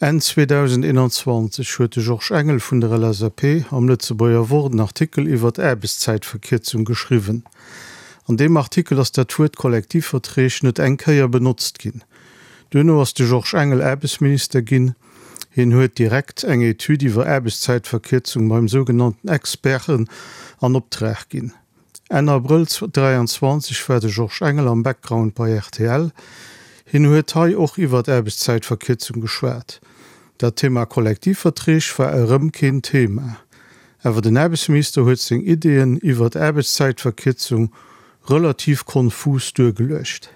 Enn 2021 huet de Georges Engel vun der LSAP am Lëtzebuerger Wort en Artikel iwwer d'Aarbechtszäitverkierzung geschriwwen. An deem Artikel ass dat Wuert Kollektivverträg net eng Kéier benotzt ginn. Duerno ass de Georges Engel Aarbechtsminister ginn. Hien huet direkt eng Etüd iwwer Aarbechtszäitverkierzung beim sougenannten Experten an Optrag ginn. Enn Abrëll 23 war de Georges Engel am Background bei rtl. Hien huet hei och iwwert Aarbechtszäitverkierzung geschwat. Dat Thema Kollektivverträg war erëm keen Thema. Awer den Aarbechtsminister huet seng Ideeën iwwert Aarbechtszäitverkierzung relativ konfus duergeluecht.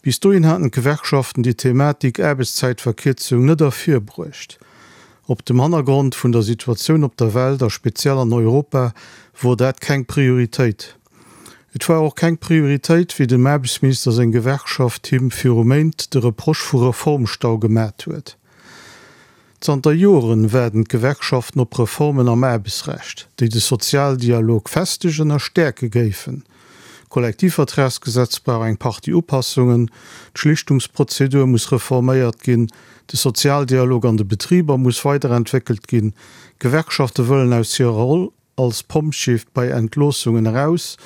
Bis dohin haten d'Gewerkschaften déi Thematik Aarbechtszäitverkierzung net ervirbruecht. Op dem Hannergrond vun der Situatioun op der Welt a speziell an Europa wor dat keng Prioritéit. Et war och keng Prioritéit, wéi dem Aarbechtsminister seng Gewerkschaft him viru Méint de Reproche vu Reformstau gemat huet. Zanter Joren waarden d'Gewerkschaften op Reformen am Aarbechtsrecht, déi de Sozialdialog festegen a stäerke géifen. D'Kollektivvertragsgesetz brauch eng Partie Upassungen, d'Schlichtungsprozedur muss reforméiert ginn, de Sozialdialog an de Betriber muss weiderentwéckelt ginn, d'Gewerkschafte wëllen aus hirer Roll als Pompjee bei Entloossungen eraus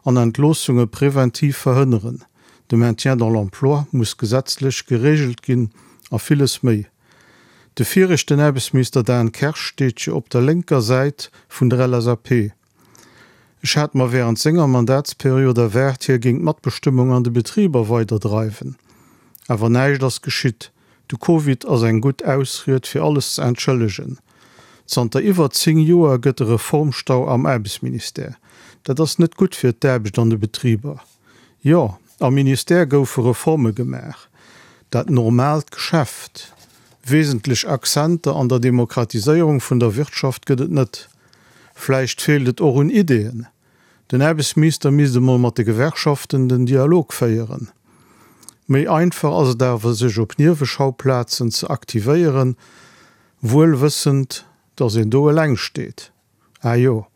an Entloossunge preventiv verhënneren, de Maintien dans l'emploi muss gesetzlech gereegelt ginn a villes méi. De viregten Aarbechtsminister Dan Kersch steet jo op der lénker Säit vun der LSAP. Ech hat mer während senger Mandatsperiod erwaart, hie géing d'Matbestëmmung an de Betriber weiderdreiwen. Awer näischt ass geschitt. De Covid ass eng gutt Ausried fir alles ze entschëllegen. Zanter iwwer 10 Joer gëtt e Reformstau am Aarbechtsministère. Dat ass net gutt fir d'Aarbecht an de Betriber. Jo, am Ministère goufe Reforme gemaach. Dat normaalt Geschäft. Wesentlech Accenter an der Demokratiséierung vun der Wirtschaft gëtt et net. Vläicht feelt et och un Ideeën. Den Aarbechtsminister misst emol mat de Gewerkschaften den Dialog féieren. Méi einfach ass et awer sech op Nieweschaupplazen ze aktivéieren, wuel wëssend, datt een do eleng steet. Ah jo,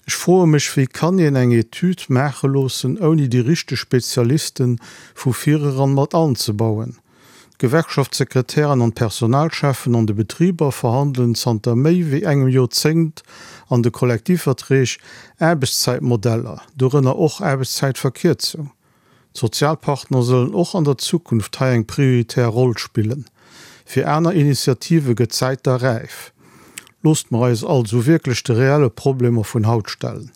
ech froe mech, wéi kann een eng Etüd maache loossen, ouni déi richteg Spezialiste vu vireran mat anzebauen? D'Gewerkschaftssekretären an d'Personalcheffen an de Betriber verhandelen zanter méi wéi engem Joerzéngt an de Kollektivverträg Aarbechtszäitmodeller, dorënner och Aarbechtszäitverkierzung. D'Sozialpartner sollen och an der Zukunft hei eng prioritär Roll spillen. Fir aner Initiative gëtt d'Zäit da räif. Loosst mer eis also wierklech de reelle Problemer vun haut stellen.